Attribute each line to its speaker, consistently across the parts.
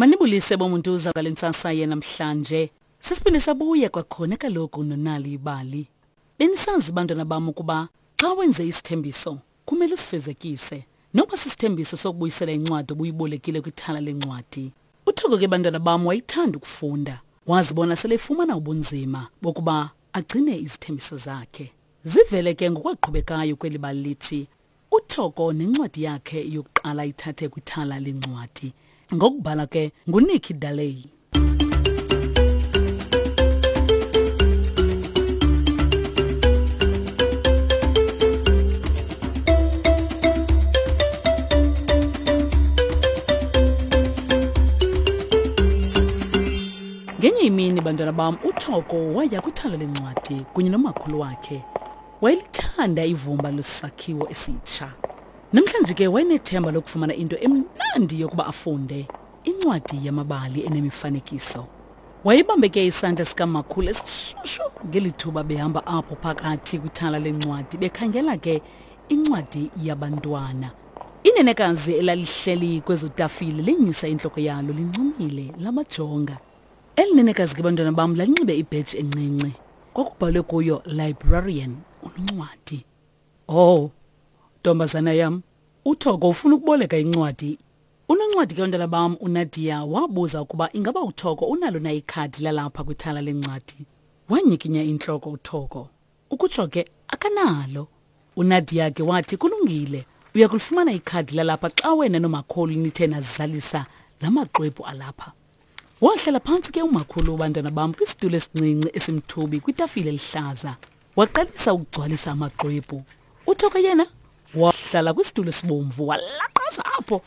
Speaker 1: Manibulise bomuntuza ngale ntsasa yenamhlanje. Sisiphinde sabuya kwakhona kaloku nonali ibali. Benisazi bantwana bam ukuba xa wenze isithembiso kumele usifezekise. Noba sisithembiso sokubuyisela incwadi obuyibolekile kwithala lencwadi. UThoko ke bantwana bam wayethanda ukufunda. Wazibona sele efumana ubunzima bokuba agcine izithembiso zakhe. Zivele ke ngokwaqhubekayo kweli bali lithi uThoko nencwadi yakhe yokuqala ayithathe kwithala lencwadi. Ngokubhala ke nguNikki Daley. Ngenye imini bantwana bam uThoko waya kwithala lencwadi kunye nomakhulu wakhe. Wayelithanda ivumba lwesakhiwo esitsha. Namhlanje ke wayenethemba lokufumana into emnandi yokuba afunde, incwadi yamabali enemifanekiso. Wayebambe ke isandla sikamakhulu esishushu ngeli thuba behamba apho phakathi kwithala lencwadi bekhangela ke incwadi yabantwana. Inenekazi elalihleli kwezo tafile lenyusa intloko yalo lincumile lamajonga. Eli nenekazi ke bantwana bam lalinxibe ibheji encinci. Kwakubhalwe kuyo librarian, unoncwadi. Oh, ntombazana yam, uThoko ufuna ukuboleka incwadi. Unoncwadi ke bantwana bam uNadia wabuza ukuba ingaba uThoko unalo na ikhadi lalapha kwithala lencwadi. Wanyikinya intloko uThoko. Ukutsho ke akanalo. UNadia ke wathi kulungile, uya kulifumana ikhadi lalapha xa wena nomakhulu nithe nazalisa la maxwebhu alapha. Wahlala phantsi ke umakhulu wabantwana bam kwisitulo esincinci esimthubi kwitafile elihlaza. Waqalisa ukugcwalisa amaxwebhu. UThoko yena wahlala kwisitulo esibomvu walaqaza apho.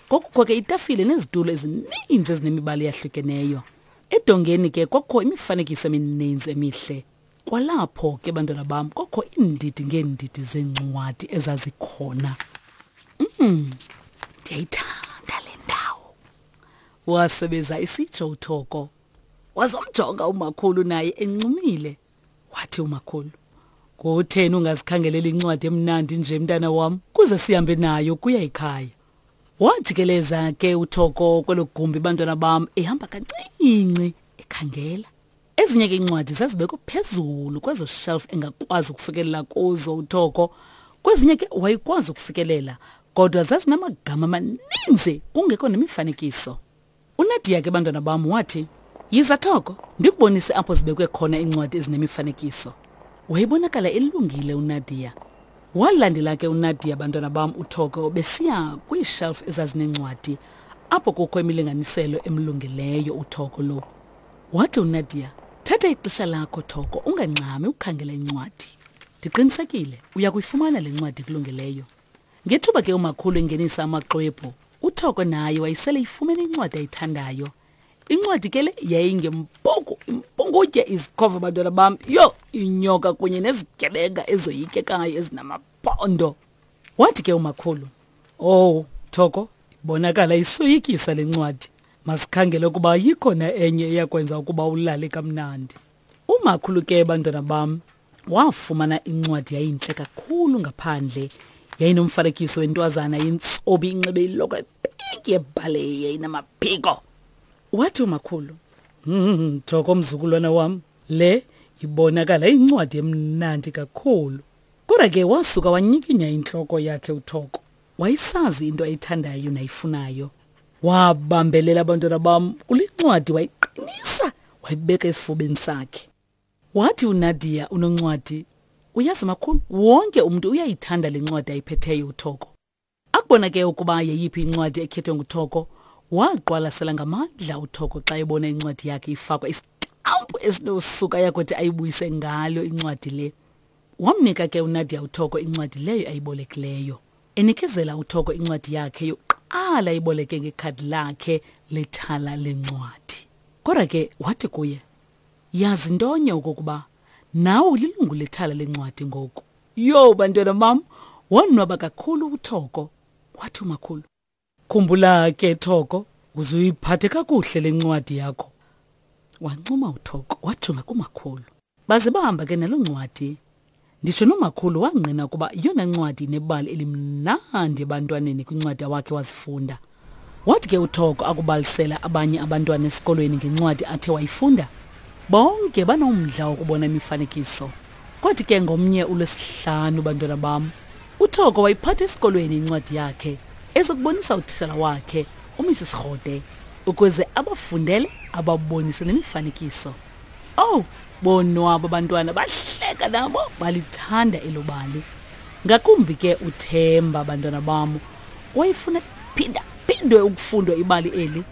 Speaker 1: Kwakukho ke itafile nezitulo ezininzi ezinemibala eyahlukeneyo. Edongeni ke kwakukho imifanekiso emininzi emihle. Kwalapho ke bantwana bam kwakho iindidi ngeendidi zeencwadi ezazikhona. Ndiyayithanda le ndawo. Wasebeza isitsho uThoko. Wazomjonga umakhulu naye encumile. Wathi umakhulu, "Kutheni ungazikhangeleli incwadi emnandi nje mntana wam kuze sihambe nayo kuya ekhaya?" Wajikeleza ke uThoko kwelo gumbi bantwana bam ehamba kancinci ekhangela. Ezinye ke iincwadi zazibekwe phezulu kwezo shelf engakwazi ukufikelela kuzo uThoko. Kwezinye ke wayekwazi ukufikelela kodwa zazinamagama amaninzi kungekho nemifanekiso. UNadia ke bantwana bam wathi, Yiza Thoko, ndikubonise apho zibekwe khona iincwadi ezinemifanekiso. Wayebonakala elungile uNadia. Walandela ke uNadia bantwana bam uThoko besiya kwiishelf ezazineencwadi apho kukho imilinganiselo emlungeleyo uThoko lo. Wathi uNadia, Thatha ixesha lakho Thoko, ungangxami ukukhangela incwadi. Ndiqinisekile uya kuyifumana le ncwadi ikulungeleyo. Ngethuba ke umakhulu engenisa amaxwebhu, uThoko naye wayesele ifumene incwadi ayithandayo. Incwadi ke le yayingempuku, impungutye izikhova bantwana bam, yho, inyoka kunye nezigebenga ezoyikekayo ezinamaphondo. Wathi ke umakhulu, Oh, Thoko, ibonakala isoyikisa le ncwadi. Masikhangele ukuba ayikho na enye eyakwenza ukuba ulale kamnandi. Umakhulu ke bantwana bam wafumana incwadi yayintle kakhulu ngaphandle. Yayinomfanekiso wentwazana yentsobi inxibe iloko epinki yebhaleyi yayinamaphiko. Wathi umakhulu, Thoko mzukulwana wam, le ibonakala incwadi emnandi kakhulu. Kodwa ke wasuka wanyikinya intloko yakhe uThoko. Wayesazi into ayithandayo nayifunayo. Wabambelela abantwana bam kule ncwadi wayiqinisa wayibeka esifubeni sakhe. Wathi uNadia unoncwadi, uyazi makhulu, wonke umntu uyayithanda le ncwadi ayiphetheyo uThoko. Akubona ke ukuba yeyiphi incwadi ekhethwe nguThoko, waqwalasela ngamandla uThoko xa ebona incwadi yakhe ifakwa isitampu esinosuka yakuthi ayibuyise ngalo incwadi le. Wamnika ke uNadia uThoko incwadi leyo ayibolekileyo. Enikezela uThoko incwadi yakhe yokuqala ayiboleke ngekhadi lakhe lethala lencwadi. Kodwa ke wathi kuye, Yazi ntonye okokuba nawe ulilungu lethala lencwadi ngoku. Yho bantwana bam, wonwaba kakhulu uThoko. Wathi umakhulu, Khumbula ke Thoko, uze uyiphathe kakuhle le ncwadi yakho. Wancuma uThoko wajonga kumakhulu. Baze bahamba ke naloo ncwadi. Nditsho nomakhulu wangqina ukuba yiyona ncwadi inebali elimnandi ebantwaneni kwincwadi awakhe wazifunda. Wathi ke uThoko akubalisela abanye abantwana esikolweni ngencwadi athe wayifunda, bonke banomdla wokubona imifanekiso. Kwathi ke ngomnye uLwesihlanu, bantwana bam, uThoko wayiphatha esikolweni incwadi yakhe ezokubonisa utitshala wakhe uMrs Rhode ukuze abafundele ababonise nemifanekiso. Owu, bonwaba abantwana bahleka nabo balithanda elo bali. Ngakumbi ke uThemba, bantwana bam, wayefuna phinda phindwe ukufundwa ibali eli.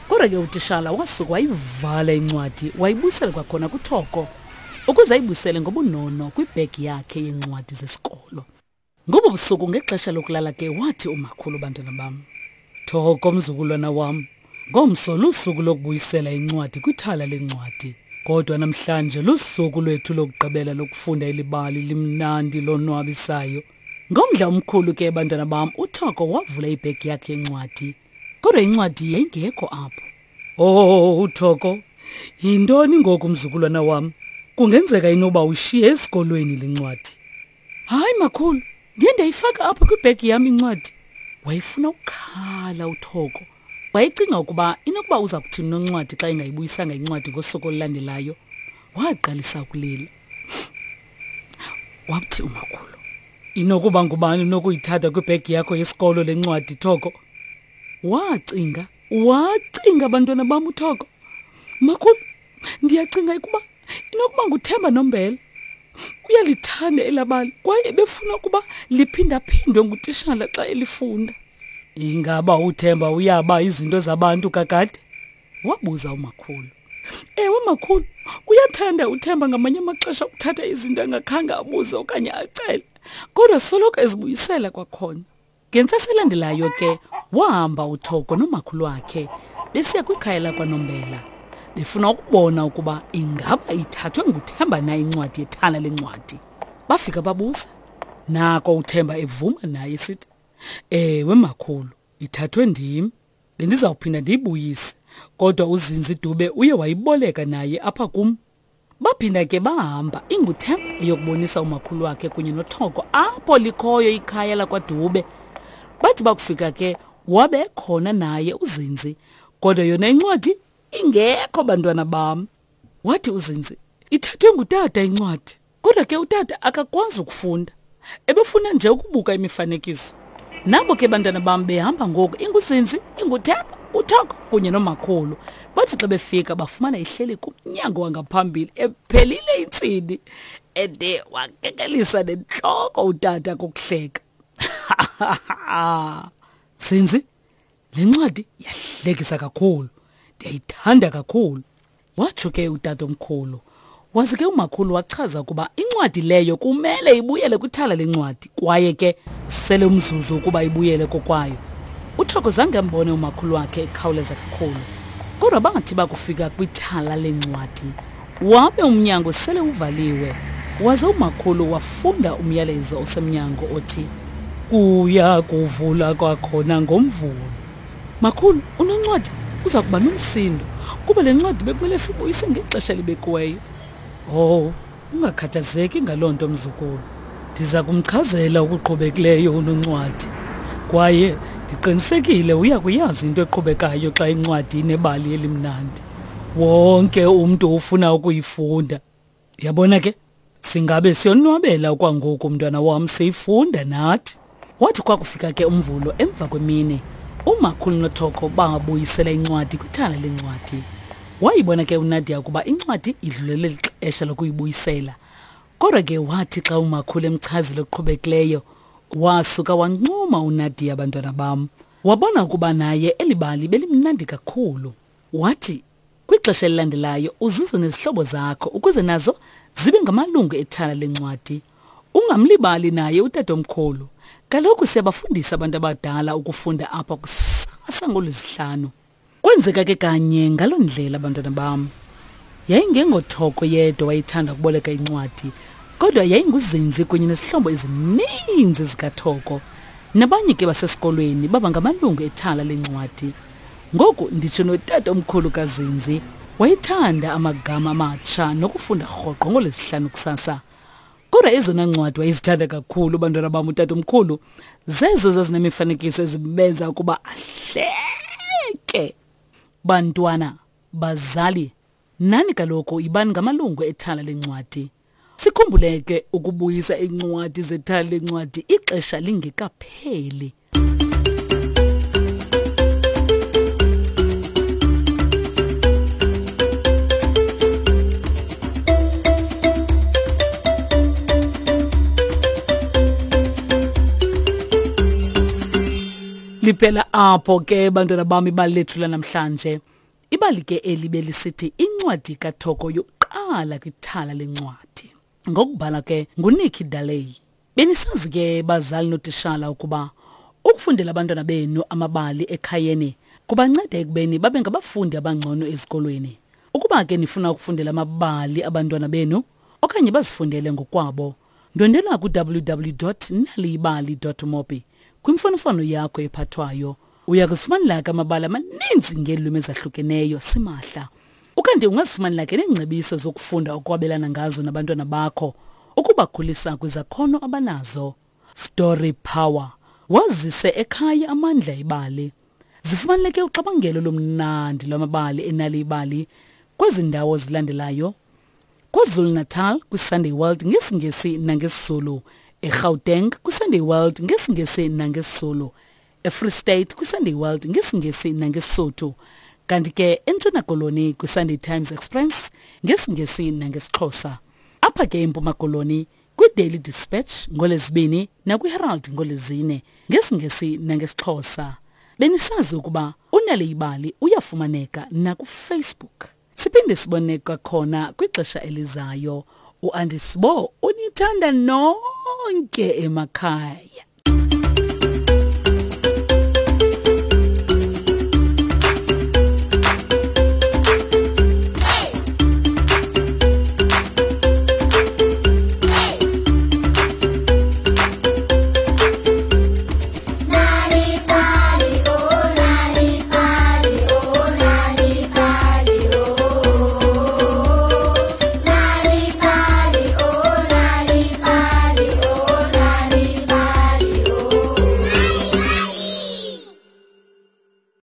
Speaker 1: Kodwa ke utishala wasuka wayivala incwadi wayibuyisela kwakhona kuThoko ukuze ayibuyisele ngobunono kwibhegi yakhe yeencwadi zesikolo. Ngobo busuku ngexesha lokulala ke wathi umakhulu, bantwana bam, Thoko mzukulwana wam, ngomso lusuku lokubuyisela incwadi kwithala lencwadi. Kodwa namhlanje lusuku lwethu lokugqibela lokufunda elibali limnandi lonwabisayo. Ngomdla omkhulu ke bantwana bam uThoko wavula ibhegi yakhe yencwadi. Kodwa incwadi yayingekho apho. Oh, uThoko, yintoni ngoku mzukulwana wam? Kungenzeka inoba ushiye esikolweni le ncwadi. Hayi makhulu, ndiye ndayifaka apho kwibhegi yam incwadi. Wayefuna ukukhala uThoko. Wayecinga ukuba inokuba uza kuthini noncwadi xa engayibuyisanga incwadi ngosuku olulandelayo. Waqalisa ukulila. Wathi umakhulu, inokuba ngubani unokuyithatha kwibhegi yakho yesikolo le ncwadi, Thoko? Wacinga, wacinga bantwana bam uThoko. Makhulu, ndiyacinga ukuba inokuba nguThemba Nombela. Uyalithanda elabali kwaye befuna ukuba liphindaphindwe ngutishala xa elifunda. Ingaba uThemba uyaba izinto zabantu kakade? Wabuza umakhulu. Ewe makhulu, uyathanda uThemba ngamanye amaxesha ukuthatha izinto engakhange abuze okanye acele, kodwa soloko ezibuyisela kwakhona. Ngentsasa elandelayo ke wahamba uThoko nomakhulu wakhe besiya kwikhaya lakwaNombela befuna ukubona ukuba ingaba ithathwe nguThemba na incwadi yethala lencwadi. Bafika babuza. Nako uThemba evuma naye esithi, "Ewe makhulu, ithathwe ndim. Bendizawuphinda ndiyibuyise, kodwa uZinzi Dube uye wayiboleka naye apha kum." Baphinda ke bahamba inguThemba eyokubonisa umakhulu wakhe kunye noThoko apho likhoyo ikhaya lakwaDube. Bathi bakufika ke wabe khona naye uZinzi, kodwa yona incwadi ingekho bantwana bam. Wathi uZinzi, ithathwe ngutata incwadi. Kodwa ke utata akakwazi ukufunda. Ebefuna nje ukubuka imifanekiso. Nabo ke bantwana bam behamba ngoku inguZinzi, inguThemba, uThoko kunye nomakhulu. Bathi xa befika bafumana ihleli kumnyango wangaphambili ephelile intsini. Ede wakekelisa nentloko utata kokuhleka. Zinzi, le ncwadi yahlekisa kakhulu. Ndiyayithanda kakhulu. Watsho ke utatomkhulu. Waze ke umakhulu wachaza ukuba incwadi leyo kumele ibuyele kwithala lencwadi kwaye ke usele umzuzu ukuba ibuyele kokwayo. UThoko zange ambone umakhulu wakhe ekhawuleza kakhulu. Kodwa bangathi bakufika kwithala lencwadi wabe umnyango sele uvaliwe. Waze umakhulu wafunda umyalezo osemnyango othi kuya kuvula kwakhona ngoMvulo. Makhulu, unoncwadi uza kuba nomsindo kuba le ncwadi bekumele sibuyise ngexesha elibekiweyo. Oh, ungakhathazeki ngaloo nto mzukulu. Ndiza kumchazela okuqhubekileyo unoncwadi. Kwaye ndiqinisekile uya kuyazi into eqhubekayo xa incwadi inebali elimnandi. Wonke umntu ufuna ukuyifunda. Yabona ke, singabe siyonwabela okwangoku mntwana wam siyifunda nathi. Wathi kwakufika ke uMvulo emva kwemini, umakhulu noThoko babuyisela incwadi kwithala lencwadi. Wayibona ke uNadia ukuba incwadi idlulele lixesha lokuyibuyisela. Kodwa ke wathi xa umakhulu emchazile okuqhubekileyo, wasuka wancuma uNadia bantwana bam. Wabona ukuba naye eli bali belimnandi kakhulu. Wathi Kwixesha elilandelayo uzuze nezihlobo zakho ukuze nazo zibe ngamalungu ethala lencwadi. Ungamlibali naye utatomkhulu. Kaloku siyabafundisa abantu abadala ukufunda apha kusasa ngolwesihlanu. Kwenzeka ke kanye ngaloo ndlela bantwana bam. Yayingengothoko yedwa wayethanda ukuboleka incwadi, kodwa yayinguzinzi kunye nezihlobo ezininzi zikaThoko. Nabanye ke basesikolweni baba ngamalungu ethala lencwadi. Ngoku nditsho notata omkhulu kaZinzi wayethanda amagama amatsha nokufunda rhoqo ngolwesihlanu kusasa. Kodwa ezona ncwadi wayezithanda kakhulu bantwana bam utata omkhulu zezo zazinemifanekiso ezibenza ukuba ahleke. nonke. Bantwana, bazali, nani kaloku yibani ngamalungu ethala lencwadi. Sikhumbule ke ukubuyisa iincwadi zethala lencwadi ixesha lingekapheli. Liphela apho ke bantwana bam ibali lethu lanamhlanje. Ibali ke eli belisithi incwadi kaThoko yokuqala kwithala lencwadi. Ngokubhala ke nguNikki Daley. Benisazi ke bazali notishala ukuba ukufundela abantwana benu amabali ekhayeni kubanceda ekubeni babe ngabafundi abangcono ezikolweni. Ukuba ke nifuna ukufundela amabali abantwana benu okanye bazifundele ngokwabo, ndwendela ku-www.naliyibali.mobi kwimfonomfono yakho ephathwayo. Uya kuzifumanela ke amabali amaninzi ngeelwimi ezahlukeneyo simahla. Ukanti ungazifumanela ke neengcebiso zokufunda okwabelana ngazo nabantwana bakho ukubakhulisa kwizakhono abanazo. Story Power wazise ekhaya amandla ebali. Zifumaneleke uxabangelo lomnandi lwamabali enali ibali kwezi ndawo zilandelayo. KwaZulu-Natal kwiSunday World ngesiNgesi nangesiZulu, eGauteng kwiSunday World ngesiNgesi nangesiZulu, eFree State kwiSunday World ngesiNgesi nangeSisotho, kanti ke eNtshona Koloni kwiSunday Times Express ngesiNgesi nangesiXhosa. Apha ke eMpuma Koloni kwiDaily Dispatch ngoLwezibini nakwiHerald ngoLwezine ngesiNgesi nangesiXhosa. Benisazi ukuba uNale Ibali uyafumaneka nakuFacebook. Siphinde sibone kwakhona kwixesha elizayo. uAndisibo unithanda nonke emakhaya.